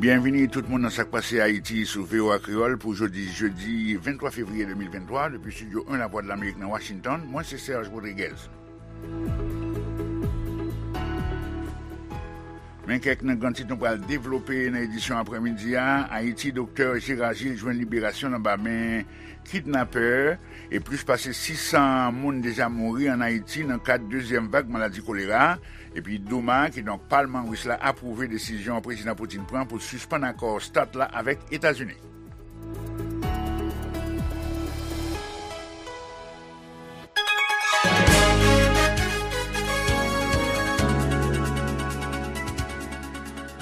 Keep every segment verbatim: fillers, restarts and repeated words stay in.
Byenvini tout moun nan Sa k Pase Ayiti sou V O A Kreyòl pou jodi jedi venntwa fevriye de mil venntwa, depi Estidyo en Lavwadlamerik nan Washington. Mwen se Serge Rodriguez. Men kèk nan gran tit nou pral devlope nan edisyon aprèmidi a. Ayiti, Doktè Gérard Gilles jwenn liberasyon l anba men kidnapè, e plis pase sis san moun deja mouri ann Ayiti nan kad dezyèm vag maladi kolera. Epi Douma, kidonk palman ris la, apwouve desizyon Prezidan Putin pran pou l sispann akò START la avèk Etazini.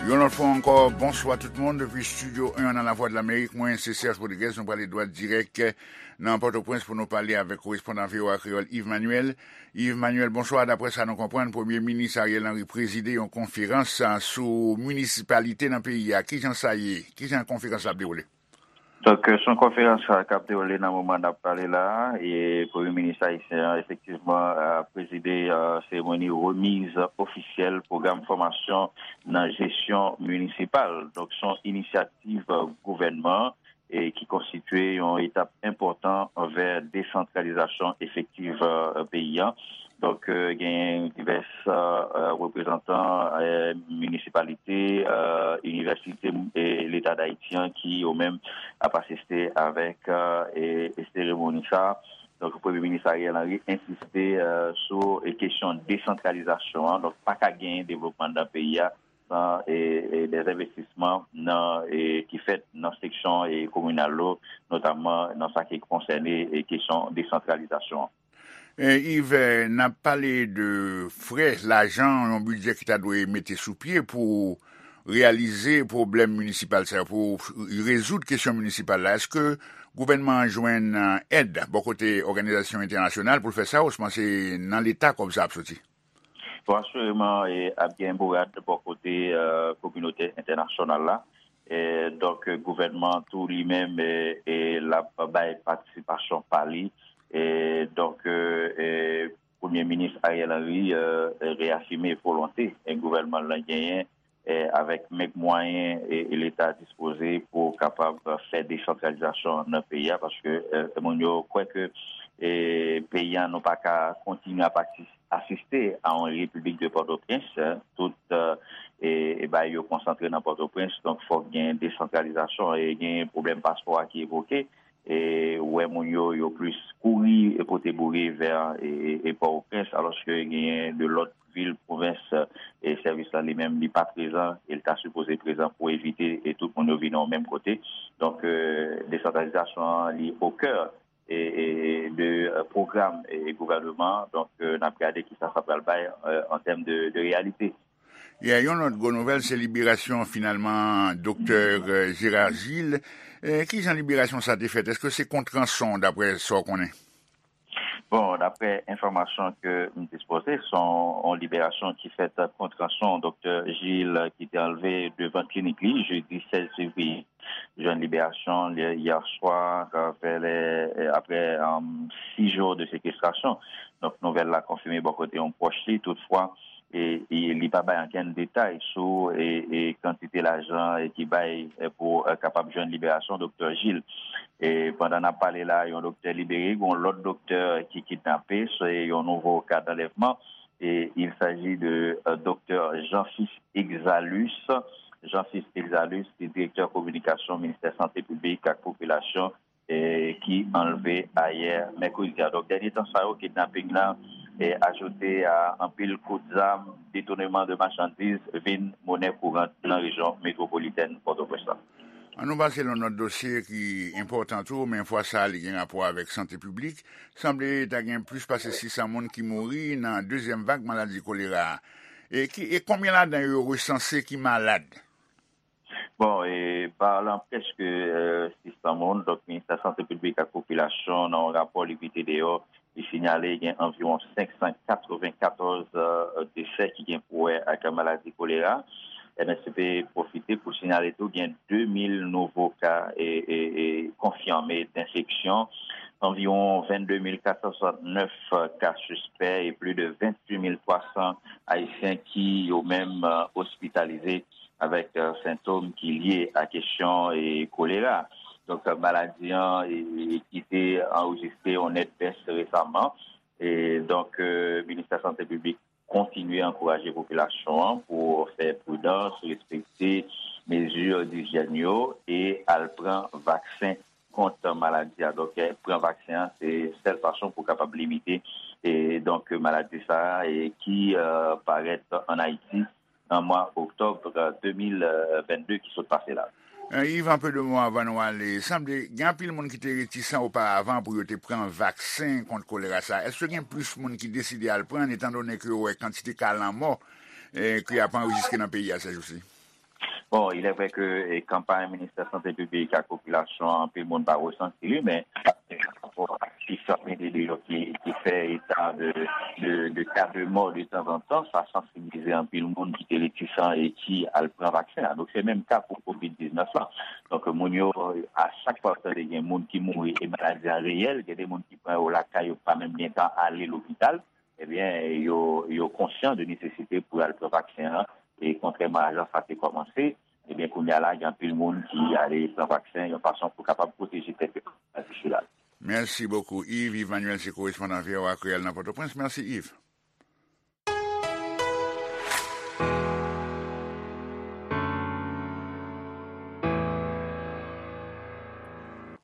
Yon lòt fwa ankò, bonswa tout moun. Depi Estidyo en nan Lavwadlamerik, mwen se Serge Rodriguez. Nou prale dwat dirèk nan Pòtoprens pou nou pale avèk korespondan V O A Kreyòl Yves Manuel. Yves Manuel, bonswa. Daprè sa nou konprann, Premye Minis Ariel Henry prezide yon konferans, a, sou minisipalite nan peyi a. Kijan sa ye? Kijan konferans la ap dewoule? Donk, euh, se yon konferans, euh, k ap dewoule nan moman n ap pale la a, e Premye Minis ayisyen an, efektivman, a prezide, euh, seremoni remiz ofisyèl pwogram fòmasyon nan jesyon minisipal. Donk, se yon inisyativ, euh, gouvènman e ki konstitye yon etap enpòtan anvè desantralizasyon efektiv, euh, peyi a. Donk, euh, genyen divès, euh, euh, reprezantan, euh, minisipalite, euh, inivèsite e Leta d Ayiti an ki yo menm ap asiste avèk, euh, e, e seremoni sa a. Donk, Premye Minis Ariel Henry ensiste, euh, sou, e, kesyon desantralizasyon an. Donk, pa ka genyen devlopman nan peyi a san, e, e, dèzenvestisman nan, e, ki fèt nan seksyon, e, kominal yo, notamman nan sa ki konsène, e, kesyon desantralizasyon an. E, Yves, n ap pale de frè, lajan, yon bidjè ki ta dwe mete sou pye pou reyalize pwoblèm minisipal sa yo, pou rezoud kesyon minisipal la. Èske gouvènman an jwenn, e, èd bò kote òganizasyon entènasyonal pou l fè sa, osnon se nan Leta kòb sa ap soti? Bon, asireman, e, ap gen bourad bò kote, e, kominote entènasyonal la. E, donk, gouvènman tou li menm, e, e, l ap bay patisipasyon pa li. E, donk, e, e, Premye Minis Ariel Henry, e, e, reyafime volonte, e, gouvènman l lan genyen, e, avèk menm mwayen, e, e Leta dispoze pou kapab fè desantralizasyon nan peyi a, paske, e, moun yo kwè ke, e, peyi a nou pa ka kontinye ap atis-, asiste a yon repiblik de Pòtoprens, e, tout, e, e, e bagay yo konsantre nan Pòtoprens, donk fòk gen desantralizasyon e gen pwoblèm paspò a ki evoke. E, ou wè moun yo, yo plis kouri e pote boure vè, e, e, e Pòtoprens, alòske genyen de lòt vil, pwovens, e sèvis la li menm li pa prezan, e l ta sipoze prezan pou evite e tout moun yo vin nan yon menm kote. Donk, e, desantralizasyon an li o kè, e, e, de, e, pwogram, e, gouvènman an. Donk, e, n ap gade kisa sa pral bay, e, an tèm de, de reyalite. Yeah, yon lòt gwo nouvèl, se liberasyon finalman Doktè, e, Gérard Gilles. E, kijan liberasyon sa te fèt? Èske se kont ranson, daprè sa w konnen? Bon, daprè enfòmasyon ke m dispoze, se yon, yon liberasyon ki fèt kont ranson. Doktè Gilles, ki te anlve devan klinik li, jedi sèz fevriye, jwenn liberasyon li yè swa, vè lè, apre, um, sis jou de sekestrasyon. Donk, nouvèl la konfime bò kote yon pwòch li. Toutfwa, e, e li pa bay ankenn detay sou, e, e kantite lajan, e ki bay, e, pou, e, kapab jwenn liberasyon Doktè Gilles. E pandan n ap pale la, yon doktè libere, yon lòt doktè ki kidnape, se yon nouvo ka d'anlèvman. E il s'agit de, e, Doktè Jean-Fils Exalus. Jean-Fils Exalus, ki direktè kominikasyon Ministè Sante Piblik ak Popilasyon, e, ki anlve ayè mèkredi a. Donk, dènye tan sa yo, kidnaping lan, e, ajoute a anpil kout zam, detouneman de machandiz vin monè kourant nan rejyon metwopolitèn Pòtoprens la. An nou pase nan lòt dosye ki enpòtan tou, men fwa sa a li gen rapò avèk sante piblik. Sanble ta gen plis pase sis san moun ki mouri nan dezyèm vag maladi kolera a. E ki, e konbyen ladan yo yo resanse ki malad? Bon, e, palan prèske, e, sis san moun, donk, Ministè Sante Piblik ak Popilasyon, nan yon rapò li mete deyò, li sinyale gen anviwon senk san katrevenkatòz, e, desè ki gen pou wè ak maladi kolera. M S P pwofite pou sinyale tou gen de mil nouvo ka, e, e, e, konfime d'enfeksyon, anviwon vennde mil kat san swasantnèf ka sispè e plis de venntuit mil twa san Ayisyen ki yo menm, e, ospitalize avèk, eh, sentòm ki lye a kesyon, eh, kolera. Donk, eh, maladi an, eh, ki te anrejistre yon nèt bès resaman. E donk, eh, Ministè Sante Piblik kontinye ankouraje popilasyon an pou fè pridans, respekte mezi dijyèn yo e al pran vaksen kont maladi a. Donk, eh, pran vaksen an, se sèl fason pou kapab limite, e donk, maladi sa a, e ki, eh, parèt ann Ayiti nan mwa oktòb, eh, de mil vennde ki sot pase la. Eh, Yves, an pe de mo avan nou ale. Sanble gen anpil moun ki te retisan oparavan pou yo te pran vaksen kont kolera sa. Èske gen plis moun ki deside al pran, etan done ke yo wè kantite ka lanmò, eh, ki ap anrejistre nan peyi a sèjousi? Bon, il est vrai que, eh, kanpay Ministè Sante Piblik ak popilasyon an, anpil moun pa resanti li, men, eh, pa rapò ak sif sa mete deyò ki, ki fè eta de, de, de ka de mò de tanzantan, sa sansibilize anpil moun ki te retisan e ki al pran vaksen an. Donk, se menm ka pou kovid diznèf la. Donk, moun yo, a chak fwa yo tande gen moun ki mouri e maladi an reyèl, gen de moun ki pran yo lakay yo, pa menm gen tan ale lopital, ebyen, yo, yo konsyan de nesesite pou al pran vaksen an. E kontrèman a jan sa te kòmanse, ebyen, kounye a la, gen anpil moun ki ale pran vaksen yon fason pou kapab pwoteje tèt yo kont maladi sila. Mèsi bokou, Yves. Yves Manuel se korespondan V O A Kreyòl nan Pòtoprens. Mèsi, Yves.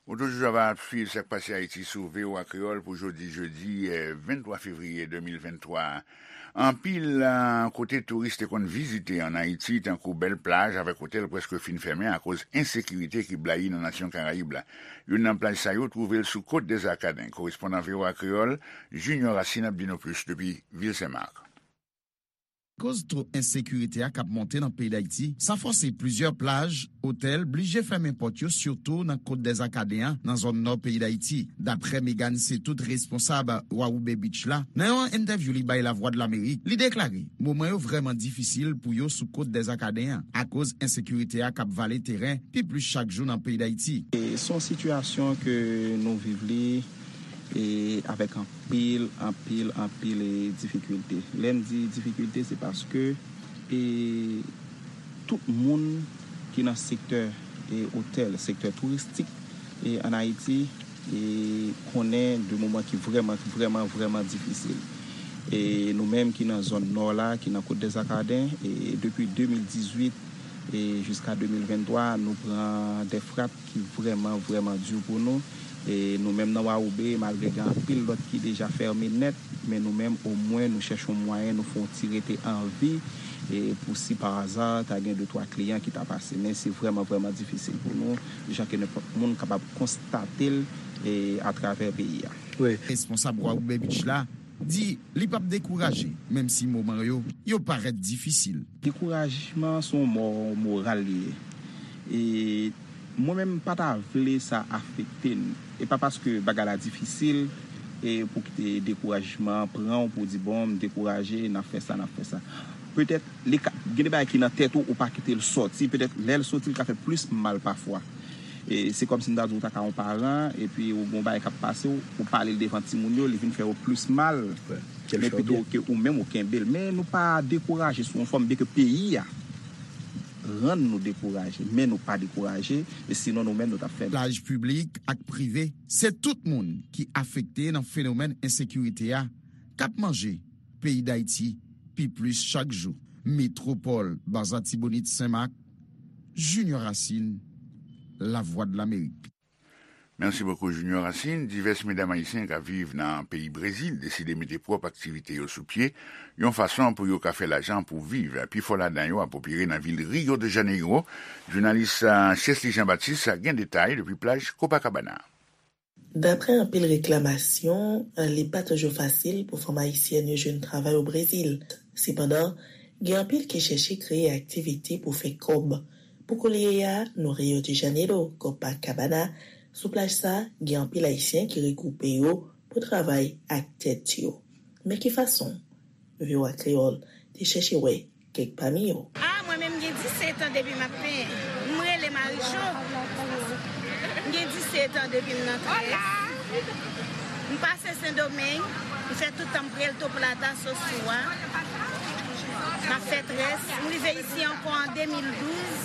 Ou toujou ap swiv Sa k Pase Ayiti sou V O A Kreyòl pou jodi, jedi, eh, venntwa fevriye de mil venntwa. Anpil, eh, kote touris te konn vizite ann Ayiti, tankou bèl plaj avèk otèl, prèske fin fèmen akoz ensekirite ki blayi nan nasyon Karayib la. Youn nan plaj sa yo twouve l sou Côte des Arcadins. Korespondan V O A Kreyòl, Junior Racine ap di nou plis depi vil Sen Mak. Akoz to ensekirite a k ap monte nan peyi Dayiti, sa fòse plizyè plaj, otèl, blije fèmen pòt yo, sitou nan Côte des Arcadins an, nan zòn nò peyi Dayiti. Daprè Megan Setout, responsab Wawoube Beach la, nan yon entèvyou li bay Lavwadlamerik, li deklare moman yo vrèman difisil pou yo sou Côte des Arcadins an, akoz ensekirite a k ap vale teren pi plis chak jou nan peyi Dayiti. E se yon sitiyasyon ke nou viv li, e avèk anpil, anpil, anpil, e difikilte. Lè m di difikilte, se paske, e tout moun ki nan sektè, e otèl, sektè touristik, e ann Ayiti, e konnen de moman ki vrèman, vrèman, vrèman difisil. E nou menm ki nan zòn nò la, ki nan Côte des Arcadins, e depi de mil dizuit e jiska de mil venntwa, nou pran de frap ki vrèman, vrèman di pou nou. E nou menm nan Wawoube, malgre gen anpil lòt ki deja fèmen nèt, men nou menm, omwen, nou chèche yon mwayen, nou fè yon ti rete an vi, e pou si pa aza, ta gen de twa kliyan ki ta pase. Men se vrèman, vrèman difisil pou nou, jan ke nenpòt moun kapab konstate l, e atravè peyi a. Wi. Responsab Wawoube Beach la di li p ap dekouraje, menm si moman yo, yo parèt difisil. Dekourajman se yon mò moral li ye. E mwen menm, m pa ta vle sa afekte n. E pa paske bagay la difisil, e pou kite dekourajman an pran w pou w di, "Bon, m dekouraje, n ap fè sa, n ap fè sa." Petèt, li ka, gen de bagay ki nan tèt ou, ou pa kite l sòti. Petèt, lè l sòti, li ka fè plis mal pafwa. E se kòmsi m ta di w ta ka yon paran, epi ou gen yon bagay k ap pase w, ou pale l devan timoun yo, li vin fè yo plis mal. Wi. Men pito ke ou menm ou kenbe l. Men nou pa dekouraje sou yon fòm, byenke peyi a rann nou dekouraje, men nou pa dekouraje, e sinon nou menm nou t ap fè. Plaj piblik ak prive, se tout moun ki afekte nan fenomèn ensekirite a, k ap manje peyi Dayiti pi plis chak jou. Metwopòl, Baza Tibonit, Senmak, Junior Racine, Lavwadlamerik. Mèsi bokou, Junior Racine. Divès medam ayisyen k ap viv nan peyi Brezil deside mete pwòp aktivite yo sou pye, yon fason pou yo ka fè lajan pou viv. Pifò ladan yo ap opere nan vil Rio de Janeiro. Jounalis, ah, Chesly Jean Baptiste gen detay depi plaj Copacabana. Daprè anpil reklamasyon, li pa toujou fasil pou fanm ayisyèn yo jwenn travay o Brezil. Sepandan, gen anpil ki chèche kreye aktivite pou fè kòb. Pou koulye a, nou Rio de Janeiro, Copacabana, sou plaj sa, gen anpil Ayisyen ki regwoupe yo pou travay ak tèt yo. Men ki fason? V O A Kreyòl te chèche wè kèk pami yo. Ah, mwen menm, m gen disèt an depi m ap penyen. M rele Marijo. M gen disèt an depi m nan Tres. M pase Sendomeng. M fè tout tan m Puerto Plata, Sosua. M ap fè Tres. M rive isi ankò an de mil douz.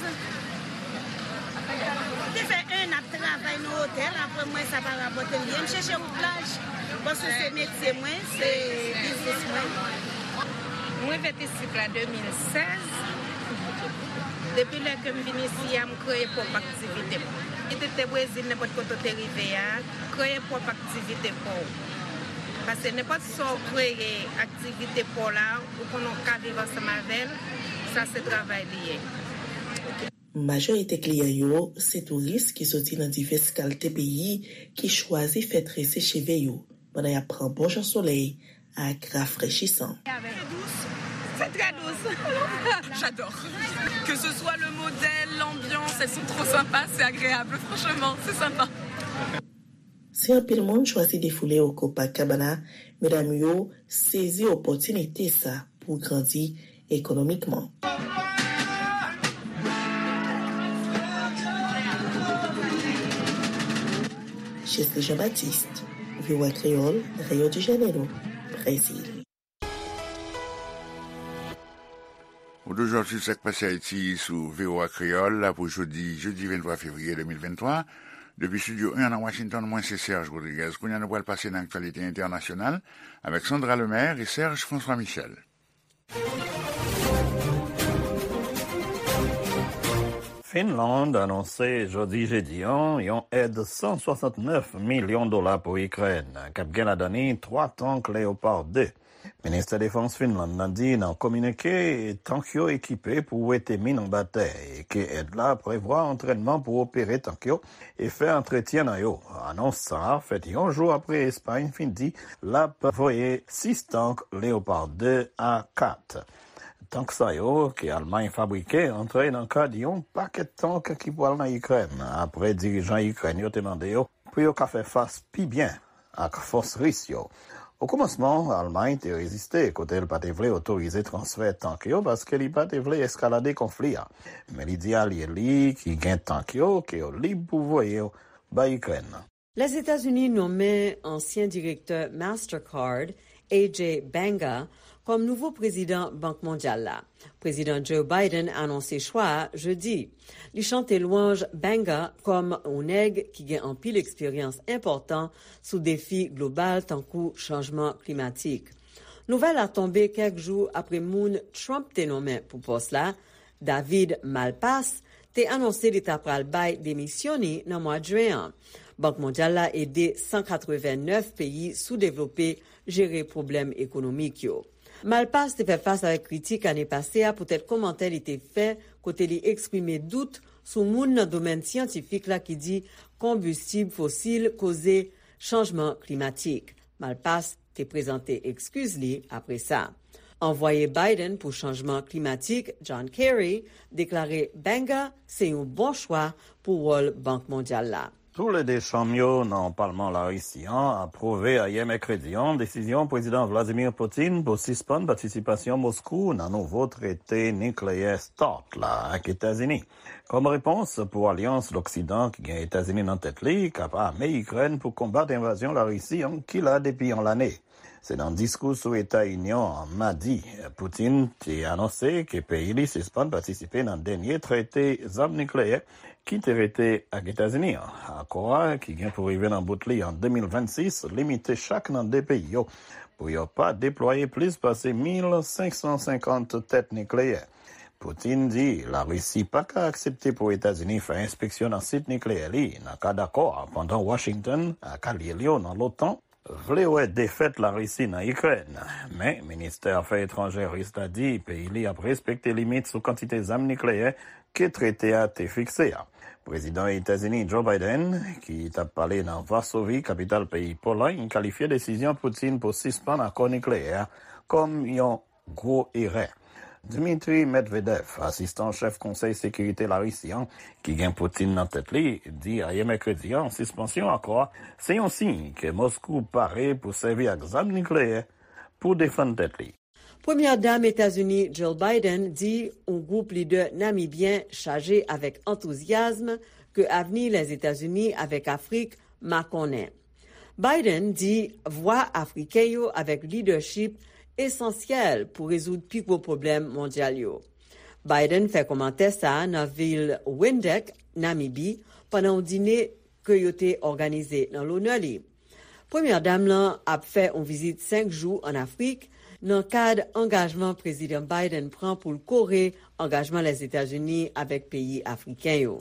M te fè en an ap travay nan otèl, apre m wè sa pa rapòte m byen. M chèche wout laj, paske se metye mwen, se biznis mwen. Mwen vin isit la de mil sèz. Depi lè ke m vin isi a, m kreye pwòp aktivite m. Kit ou te Brezil, nenpòt kote w te rive a, kreye pwòp aktivite pa w. Paske nenpòt sa w kreye aktivite pa w la, ou konnen w ka viv ansanm avè l, sa se travay li ye. Majorite kliyan yo se touris ki soti nan divès kalte peyi ki chwazi fè trese cheve yo pandan y ap pran bon jan solèy ak rafrechisan. C'est très doux. J'adore. Que ce soit le modèle, l'ambiance, elles sont trop sympas, c'est agréable, franchement, c'est sympa. Si anpil moun chwazi defoule yo Copacabana, medam yo sezi opòtinite sa pou grandi ekonomikman. Chesley Jean-Baptiste, V O A Kreyòl, Rio de Janeiro, Brezil. Ou toujou ap swiv Sa k Pase Ayiti sou V O A Kreyòl la pou jodi, jedi venntwa fevriye de mil venntwa. Depi estidyo en nan Washington, mwen se Serge Rodriguez. Kounye a nou pral pase nan aktyalite entènasyonal avèk Sandra Lemaire e Serge François Michel. Finland anonse jodi jedi an yon èd san swasantnèf milyon dola pou Ikrèn, k ap gen ladan li twa tank Leopard de. Ministè Defans Finland nan di nan kominike, tank yo ekipe pou wete min anba tè e ke èd la prevwa antrènman pou opere tank yo e fè antretyen nan yo. Anons sa a fèt yon jou apre Espay fin di l ap voye sis tank Leopard de a kat. Tank sa yo, ke Almay fabrike, antre nan kad yon pakèt tank ki pral nan Ikrèn, apre dirijan Ikrèn yo te mande yo pou yo ka fè fas pi byen ak fòs ris yo. Okòmansman, Almay te reziste kote l pa te vle otorize transfè tank yo paske li pa te vle eskalade konfli a. Men li di alye li ki gen tank yo ke yo lib pou voye yo bay Ikrèn. Lèzetazini nonmen ansyen direktè Mastercard, Ajay Banga, kòm nouvo prezidan Bank Mondyal la. Prezidan Joe Biden anonse chwa a jedi. Li chante lwanj Banga kòm yon nèg ki gen anpil eksperyans enpòtan sou defi global tankou chanjman klimatik. Nouvèl la tonbe kèk jou apre moun Trump te nonmen pou pòs la, David Malpass, te anonse li ta pral bay demisyon li nan mwa jen an. Bank Mondyal la ede san katreven nèf peyi soudevlope jere pwoblèm ekonomik yo. Malpass te fè fas avèk kritik ane pase a poutèt kòmantè li te fè kote li eksprime dout sou moun nan domèn syantifik la ki di konbistib fosil koze chanjman klimatik. Malpass te prezante ekskiz li apre sa. Anvwaye Biden pou chanjman klimatik, John Kerry, deklare Banga se yon bon chwa pou wòl Bank Mondyal la. Toulede chanm yo nan palman Larisi an apwouve ayè mèkredi an desizyon Prezidan Vladimir Putin pou sispann patisipasyon Moskou nan nouvo trete nikleyè start la ak Etazini, kòm repons pou alyans Loksidan ki gen Etazini nan tèt li k ap ame Ikrèn pou konbat envazyon Larisi an ki la depi yon lane. Se nan diskou sou Eta Inyon an madi, Putin te anonse ke peyi li sispann patisipe nan dènye trete zam nikleyè ki te rete ak Etazini an. Akò a, ki gen pou rive nan bout li an de mil vennsis, limite chak nan de peyi yo pou yo pa deplwaye plis pase mil senk san senkant tèt nikleyè. Putin di Larisi pa ka aksepte pou Etazini fè enspeksyon nan sit nikleyè li nan kad akò a, pandan Washington ak alye li yo nan lotan vle wè defèt Larisi nan Ikrèn. Men, ministè afè etranjè ris la di peyi li ap respekte limit sou kantite zam nikleyè ke trete a te fikse a. Prezidan Etazini Joe Biden, ki t ap pale nan Vasovi, kapital peyi Polòy, kalifye desizyon Putin pou sispann akò nikleyè a kòm yon gwo erè. Dmitry Medvedev, asistan chèf Konsèy Sekirite Larisi an, ki gen Putin nan tèt li, di ayè mèkredi an sispansyon akò a se yon siy ke Moskou pare pou sèvi ak zam nikleyè pou defann tèt li. Premyè Dam Etazini Jill Biden di yon gwoup lidè namibyen chaje avèk antouzyasm ke avni Lèzetazini avèk Afrik makonnen. Biden di vwa Afriken yo avèk lidèchip esansyèl pou rezoud pi gwo pwoblèm mondyal yo. Biden fè kòmantè sa a nan vil Windhoek, Namibi, pandan yon dine ke yo te òganize nan lonè li. Premyè dam lan ap fè yon vizit senk jou ann Afrik nan kad angajman Prezidan Biden pran pou l kore angajman Lèzetazini avèk peyi afriken yo.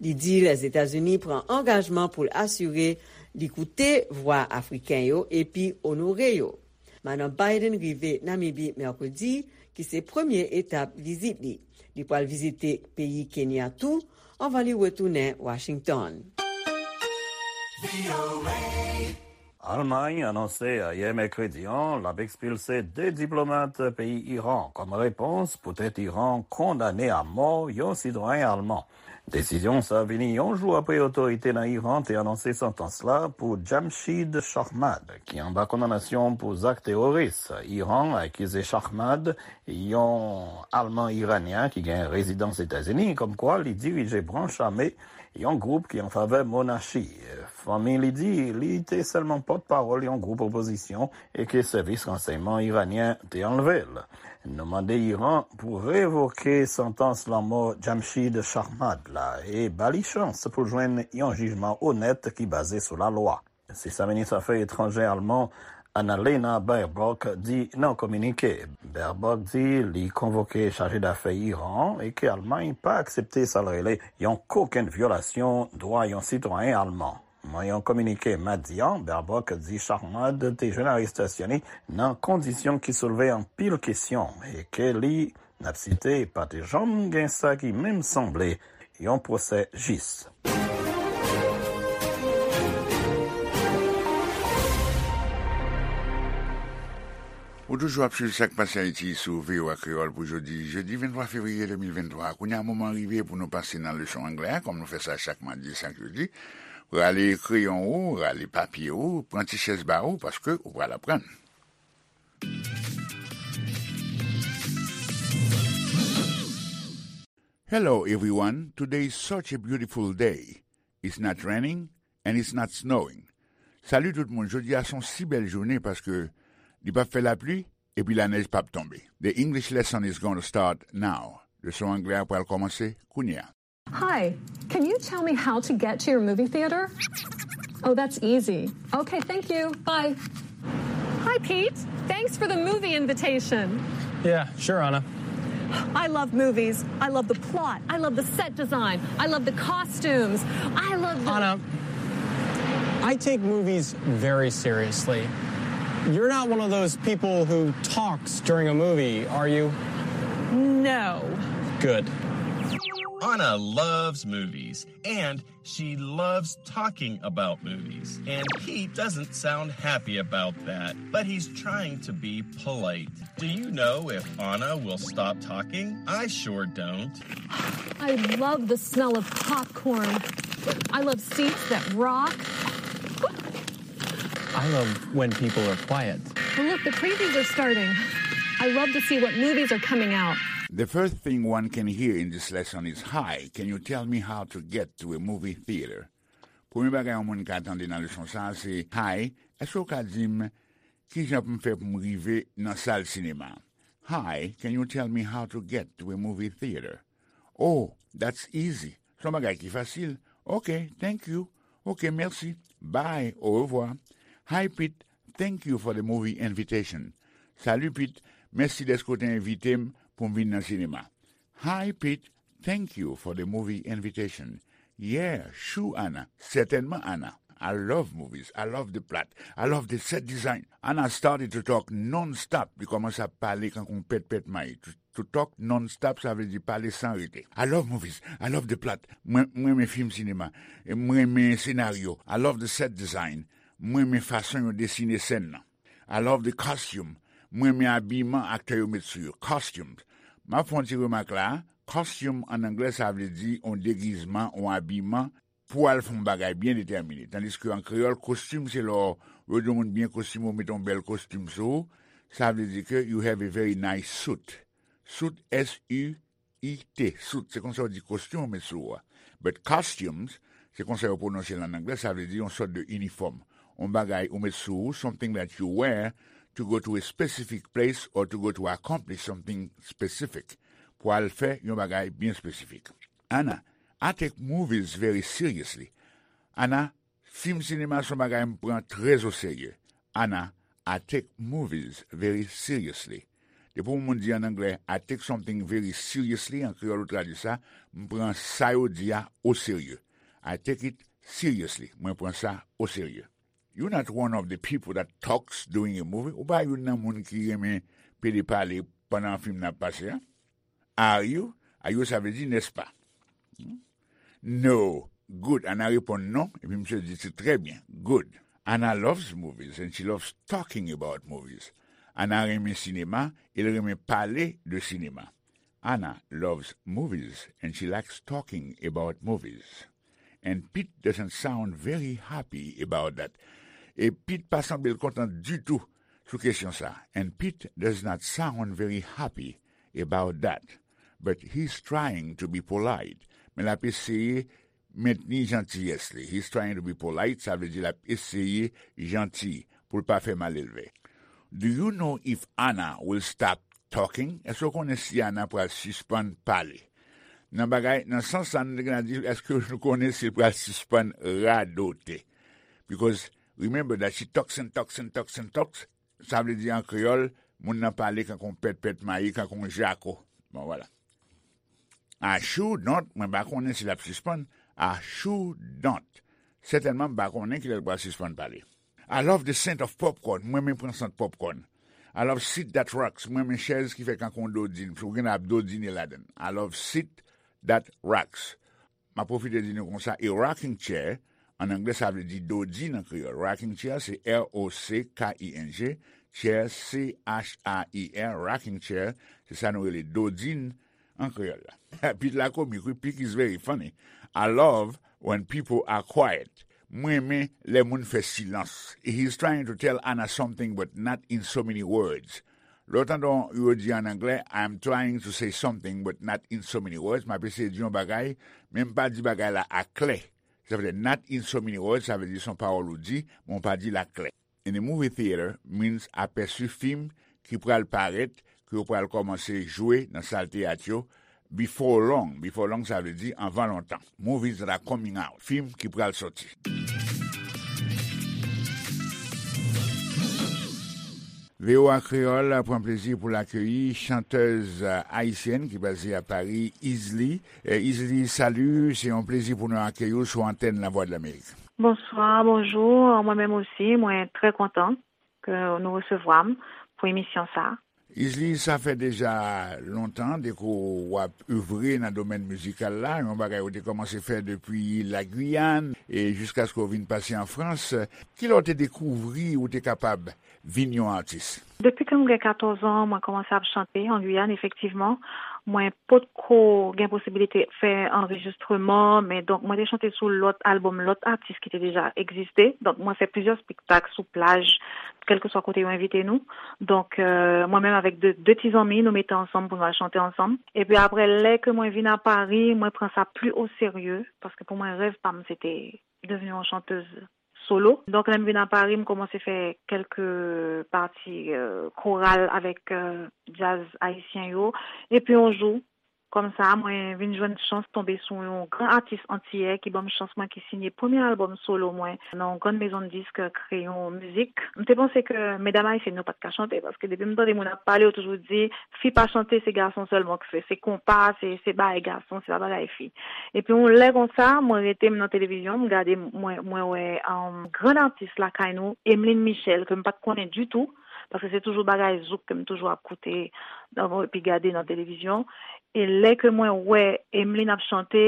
Li di Lèzetazini pran angajman pou l asire li koute vwa Afriken yo epi onore yo. Madan Biden rive Namibi Mèkredi, ki se premye etap vizit li. Li pral vizite peyi Kenya tou, anvan li retounen Washington. Almay anonse ayè mèkredi an l ap ekspilse de diplomat peyi Iran kòm repons poutèt Iran kondane a mò yon sitwayen alman. Desizyon sa vini yon jou apre otorite nan Iran te anonse santans la pou Jamshid Shahmad, ki anba kondanasyon pou zak teworis. Iran akize Shahmad, yon Alman Iranyen ki gen rezidans Etazini, kòmkwa li dirije branch ame yon gwoup ki an favè monachi. Fanmi li di li te sèlman pòtpawòl yon gwoup opozisyon e ke sèvis ransèyman iranyen te anlve l. Nou mande Iran pou revoke santans lanmò Jamshid Shahmad la e ba li chans pou l jwenn yon jijman onèt ki baze sou lalwa. Se sa minis afè etranjè alman Annalena Baerbock di nan kominike. Baerbock di li konvoke chaje dafè Iran an e ke Almay pa aksepte sa l rele yon kokenn vyolasyon dwa yon sitwayen alman. Nan yon kominike madi an, Baerbock di Shahmad te jwenn arestasyon li nan kondisyon ki soulve anpil kesyon e ke li, n ap site, pa te janm gen sa ki menm sanble yon pwosè jis. Ou toujou ap swiv Sa k Pase Ayiti sou V O A Kreyòl pou jodi, jedi venntwa fevriye de mil venntwa. Kounye a, moman an rive pou nou pase nan leson anglè a, kòm nou fè sa chak madi, chak jedi. Rale kreyon ou, rale papye ou, pran ti chèz ba ou, paske ou pral aprann. Hello everyone, today is such a beautiful day. It's not raining and it's not snowing. Salut tout moun, jodi a se yon si bèl jounen paske li p ap fè lapli epi lanèj p ap tonbe. The English lesson is gonna start now. Leson anglè a pral kòmanse kounye a. Hi, can you tell me how to get to your movie theater? Oh, that's easy. Okay, thank you. Bye. Hi, Pete. Thanks for the movie invitation. Yeah, sure, Anna. I love movies. I love the plot. I love the set design. I love the costumes. I love the. Anna, I take movies very seriously. You're not one of those people who talks during a movie, are you? No. Good. Anna loves movies, and she loves talking about movies. And Pete doesn't sound happy about that, but he's trying to be polite. Do you know if Anna will stop talking? I sure don't. I love the smell of popcorn. I love seats that rock. I love when people are quiet. Well, look, the previews are starting. I love to see what movies are coming out. The first thing one can hear in this lesson is, "Hi, can you tell me how to get to a movie theater?" Premye bagay yon moun ka tande nan leson sa a se, "Hi, èske w ka di m ki jan pou m fè pou m rive nan sal sinema?" "Hi, can you tell me how to get to a movie theater?" "Oh, that's easy. Se yon bagay ki fasil." "Ok, thank you." "Ok, mèsi." "Bye, orevwa." "Hi, Pete. Thank you for the movie invitation." "Salut, Pete. Mèsi dèske w te envite m pou m vin nan sinema." "Hi, Pete. Thank you for the movie invitation." "Yeah, sure, Anna. Certainement, Anna. I love movies. I love the plot. I love the set design." Anna started to talk non-stop. Li kòmanse ap pale kankou yon pèt pèt may. To, to talk non-stop, sa vle di pale san rete. "I love movies. I love the plot." Mwen, mwen renmen fim sinema. Mwen renmen senaryo. "I love the set design." Mwen renmen fason yo desine sèn nan. "I love the costume." Mwen renmen abiman aktè yo met sou yo. Costumes. M ap fè yon ti remak la. Costume an anglè, sa vle di yon degizman, yon abiman pou al fè yon bagay byen detèmine. Tandiske an kreyòl, kostim se lè w, yo di yon moun byen kostime, ou mete yon bèl kostim sou ou. Sa vle di ke you have a very nice suit. Suit, S U I T, suit, se konsa yo di kostim ou met sou ou a. But costumes, se konsa yo pwononse l an anglè, sa vle di yon sòt de inifòm. Yon bagay ou met sou ou, something that you wear to go to a specific place or to go to accomplish something specific. pou al fè yon bagay byen espesifik. Ana, I take movies very seriously. Ana, fim sinema se yon bagay m pran trè o serye. Ana, I take movies very seriously. Depi yon moun di an anglè, I take something very seriously, an kreyòl ou tradui sa, m pran sa yo di a o serye. I take it seriously. Mwen pran sa o serye. You're not one of the people that talks during a movie. Ou pa youn nan moun ki renmen pede pale pandan fim nan ap pase a. Are you? Are you sa vle di, n'est-ce pas? No. Good. Ana reponn non, epi misye di se trè byen. Good. Ana loves movies and she loves talking about movies. Ana renmen sinema, e l renmen pale de sinema. Ana loves movies and she likes talking about movies. And Pete doesn't sound very happy about that. E Pete pa sanble l kontan ditou sou kesyon sa. And Pete does not sound very happy about that. But he's trying to be polite. Men l ap eseye mentni jantiyès li. He's trying to be polite, sa vle di l ap eseye janti pou l pa fè malelve. Do you know if Anna will stop talking? Èske w konnen si Ana pral sispann pale? Nan bagay, nan sans sa, nou te gen a di, èske nou konnen si l pral sispann radote? Because remember that she talks and talks and talks and talks. Sa vle di an kreyòl, moun nan pale kankou yon pèt pèt mayi, kankou yon jako. Bon, vwala. I sure don't, mwen pa konnen si l ap sispann. I sure don't. Sètènman, m pa konnen kilè l pral sispann pale. I love the scent of popcorn. Mwen renmen pran sant popcorn. I love seat that rocks. Mwen renmen chèz ki fè kankou yon dodin. Ou gen ap dodine ladan l. I love seat that rocks. M ap pwofite di nou konsa, a rocking chair, an anglè sa vle di dodin an kreyòl. Rocking chair, se R O C K I N G, chair, C H A I R, rocking chair, se sa nou rele dodin an kreyòl la. Pete la komik, wi, Pete is very funny. I love when people are quiet. Mwen renmen lè moun fè silans. He's trying to tell Anna something, but not in so many words. Lè w tande yo di an anglè, I'm trying to say something, but not in so many words, m ap eseye di yon bagay, men m pa di bagay la aklè. Sa vle di not in so many words, sa vle di se yon pawòl ou di, men w pa di l aklè. In the movie theater means apèsi fim ki pral parèt, ke yo pral kòmanse jwe nan sal teyat yo, before long. Before long, sa vle di anvan lontan. Movies that are coming out. Fim ki pral soti. V O A Kreyòl pran plezi pou l akeyi chantèz ayisyèn ki baze a Pari, Izli. Eh, Izli, salut, se yon plezi pou nou akeyi w sou antèn Lavwadlamerik. Bonswa, bonjou. Mwen menm osi, mwen trè kontan ke nou resevwa m pou emisyon sa a. Izli, sa fè deja lontan depi w ap evre nan domèn mizikal la, yon bagay ou te kòmanse fè depi Lagwiyàn e jiskaske w vin pase an Frans. Kilè w te dekouvri ou te kapab vin yon atis? Depi ke m gen katòz an, mwen kòmanse ap chante an Giyàn, efektivman. Mwen potko gen posibilite fè anrejistreman, men donk mwen te chante sou lòt albòm lòt atis ki te deja egziste. Donk mwen fè plizyè espektak sou plaj, kèlkeswa kote yo envite nou. Donk, euh, mwen menm avèk de, de ti zanmi, nou mete ansanm pou nou al chante ansanm. Epi apre, lè ke mwen vin a Pari, mwen pran sa pli o serye, paske pou mwen, rèv pa m, se te devni yon chantèz solo. Donk, lè m vin a Pari, m kòmanse fè kèlke pati, euh, koral avèk, euh, djaz ayisyen yo. Epi yon jou, kòmsa, mwen vin jwenn chans tonbe sou yon gran atis antiyè ki ban m chans mwen ki siyen premye albòm solo mwen nan yon grann mezon disk, Kreyon Mizik. M te panse ke medam ayisyèn yo pa t ka chante, paske depi m tande moun ap pale, yo toujou di, fi pa chante, se gason sèlman k fè, se konpa, se, se bagay gason, se pa bagay fi. Epi yon lè konsa, mwen rete, m nan televizyon, m gade, mwen, mwen wè, um, grann atis lakay nou, Emeline Michel, ke m pa t konnen ditou, paske se toujou bagay zouk ke m toujou ap koute, um, epi gade nan televizyon. E lè ke mwen wè Emeline ap chante,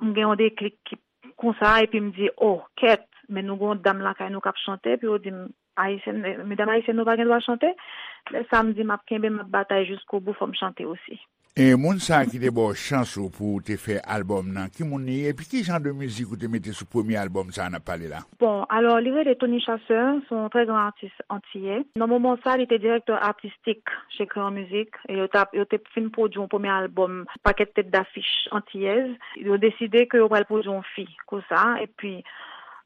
m gen yon deklik ki konsa, epi m di, oh, kèt, men nou gen yon dam lakay nou k ap chante, epi yo di m, Ayisyèn, medam ayisyèn nou pa gen dwa chante. Lè sa m di m ap kenbe, m ap batay jiskobou, fò m chante osi. E moun sa a ki te ba w chans ou pou w te fè albòm nan, ki moun li ye, epi ki jan de mizik ou te mete sou premye albòm sa a n ap pale la? Bon, alò, li rele Tony Chasseur, se yon trè gran atis antiyè. Nan moman sa, li te direktè atistik chez Crayon Music, e yo t ap, yo te fin pwodui yon premye albòm, pakèt tèt dafich antiyèz. Yo deside ke yo pral pwodui yon fi, konsa, epi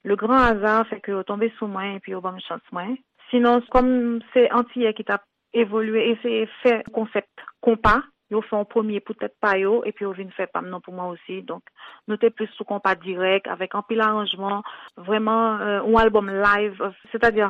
le grand hasard fè ke yo tonbe sou mwen, epi yo ban m chans mwen. Sinon, kòm se antiyè ki t ap evolye, eseye fè konsèp konpa, yo fè yon premye pou tèt pa yo, epi yo vin fè pa m nan pou mwen osi. Donk, nou te plis sou konpa dirèk, avèk anpil aranjman, vrèman, euh, yon albòm live, euh, sètadi,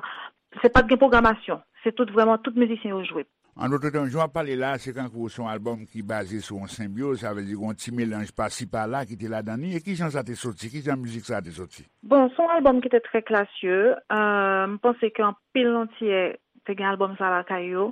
se pa t gen pwogramasyon, se tout vrèman tout mizisyen yo jwe. An dòt tèm, jan w ap pale la, se kankou se yon albòm ki baze sou yon senbyoz, sa vle di gen yon ti melanj pasi pala ki te ladan li. E ki jan sa te soti? Ki jan mizik sa te soti? Bon, se yon albòm ki te trè klasye. Euh, m panse ke anpil Antiyè te gen albòm sa lakay yo.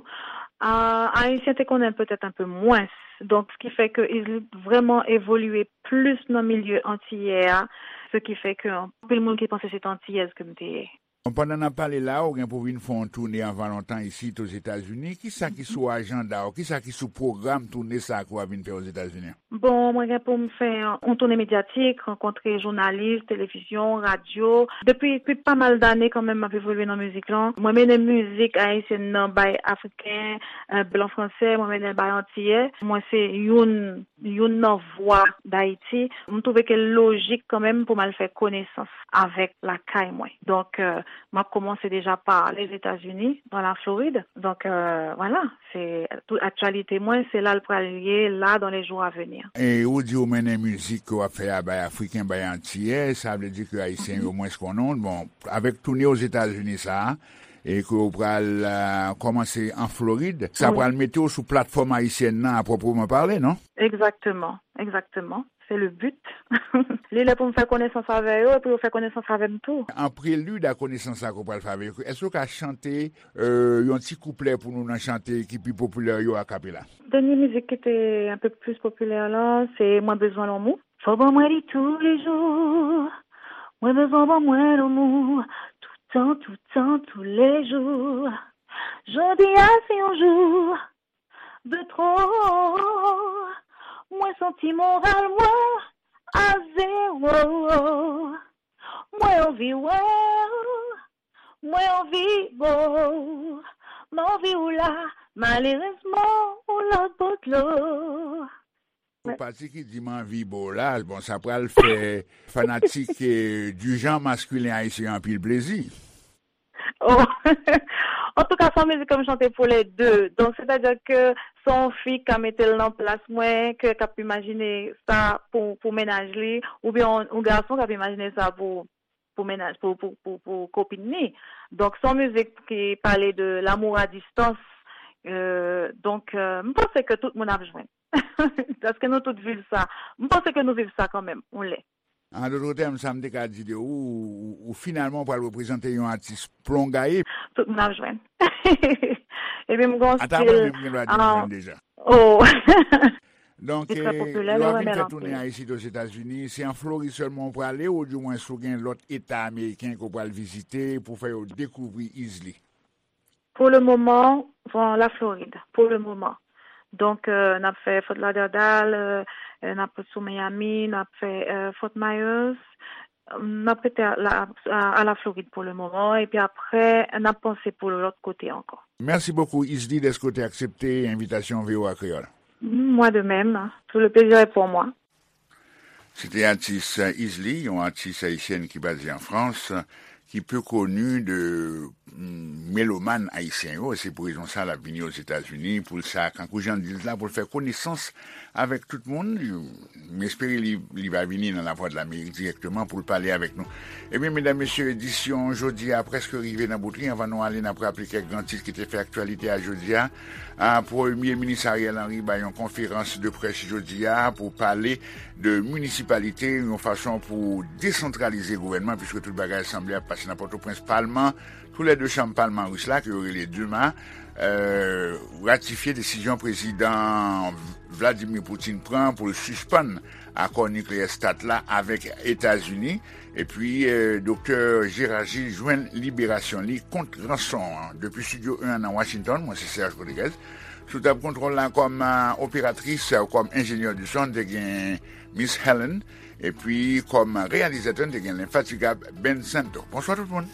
Ah, Ayisyen te konnen l petèt enpe mwens. Donk, se ki fè ke Izli vrèman evolye plis nan milye antiyè a. Se ki fè ke anpil moun ki panse se te antiyèz ke m te ye. Bon, pandan n ap pale la, ou gen pou vin fè yon toune anvan lontan isit Ozetazini. Kisa ki sou ajanda w? Kisa ki sou pwogram toune sa a ke w ap vin fè Ozetazini an? Bon, mwen gen pou m fè yon toune medyatik, rankontre jounalis, televizyon, radyo. Depi, depi pa mal dane kanmenm m ap evolye nan mizik lan. Mwen mennen mizik ayisyèn nan bay Afriken, euh, blan fransè, mwen mennen bay Antiyè. Mwen se youn, youn nan vwa Dayiti. M twouve ke l lojik kanmenm pou m al fè konesans avèk lakay mwen. Donk, euh, m ap kòmanse deja pa Lèzetazini, nan Laflorid. Donk, euh, vwala, se tout aktyalite mwen, se la l pral ye, la, dans les jours à venir. E ou di ou mennen mizik ke w ap fè a bay Afriken, bay Antiyè, sa vle di ke Ayisyen yo mwens konnen w. Bon, avèk toune Ozetazini sa a, e ke w pral, euh, kòmanse an Florid, sa pral mete w sou platfòm ayisyèn nan a pwopreman pale, non? Egzakteman, egzakteman. Se le but. Li lè pou m fè konesans avè yo, epi yo fè konesans avè m tou. An prelid a konesans sa ke w pral fè avè yo, èske w ka chante, euh, yon ti kouplè pou nou nan chante ki pi popilè yo akapela? Dènye mizik ki te enpe plis popilè lan, se Mwen bezwen lanmou. Fò ban mwen li toulejou. Mwen bezwen ban mwen lanmou. Toutan, toutan, toulejou. Jodi a se yon jou de twò. Mwen santi moral mwen a zewo. Mwen anvi wè w. Mwen anvi bo. M anvi w la. Malerezman, ou lòt bò dlo. Ou pati ki di m anvi bo la, bon, sa pral fè fanatik, eh, du genre masculin ayisyen anpil plezi. Oh. Antouka, se yon mizik ke m chante pou lè de. Donk, sètadi ke se yon fi k ka mete l nan plas mwen, ke k ap imajine sa pou, pou mennaj li, oubyen yon, yon gason k ap imajine sa pou, pou mennaj, pou, pou, pou, pou kopin li. Donk, se yon mizik ki pale de l'amour à distance. Euh, donk, euh, m panse ke tout moun ap jwenn. Paske nou tout viv sa. M panse ke nou viv sa kanmenm, yon lè. An dòt tèm, sa m te ka di de ou, ou, ou finalman pral reprezante yon atis plongaye. Tout moun ap jwenn. Epi m gen yon stil, ata mwen menm gen dwa di m jwenn deja. Oh. Donk, eh, lè w ap vin fè tounen a isit Ozetazini, se an Florid sèlman w prale, oudimwens ou gen lòt eta ameriken ke w pral vizite pou fè yo dekouvri Izli? Pou le moman, bon, la Florid, pou le moman. Donk, euh, n ap fè Fort Lauderdale, euh, euh, n ap sou Miami, n ap fè, euh, Fort Myers. N ap rete a la, a, a la Florid pou le moman, epi apre, n ap panse pou lòt kote ankò. Mèsi bokou, Izli, dèske w te aksepte envitasyon V O A Kreyòl. Moi de même, tout le plaisir est pour moi. Se te atis Izli, yon atis ayisyèn ki baze an Frans, ki pi koni de, mm, melomàn ayisyen yo. Se pou rezon sa l ap vini Ozetazini, pou l sa, kankou jan l di l la, pou l fè konesans avèk tout moun. M espere li, li va vini nan Lavwadlamerik dirèkteman pou l pale avèk nou. Ebyen, medam, mesye, edisyon jodi a prèske rive nan bout li. Anvan nou ale, n ap raple kèk gran tit ki te fè aktyalite a jodi a. A, Premye Minis Ariel Henry bay yon konferans de près jodi a pou pale de minisipalite, yon fason pou desantralize gouvènman, piske tout bagay sanble ap pase nan Pòtoprens. Palman, tou lè de chanm palman ris la, ke yo rele Duma, euh, ratifye desizyon prezidan Vladimir Putin pran pou l sispann akò nikleyè START la avèk Etazini. Epi, euh, Doktè Gérard Gilles jwenn liberasyon li kont ranson an. Depi Estidyo en an nan Washington, mwen se Serge Rodriguez. Sou tab kontwòl la kòm, euh, operatris, euh, kòm enjenyè di son, te gen Miss Helen. Epi kòm reyalizatè, te gen lenfatigab Ben Santo. Bonswa tout moun.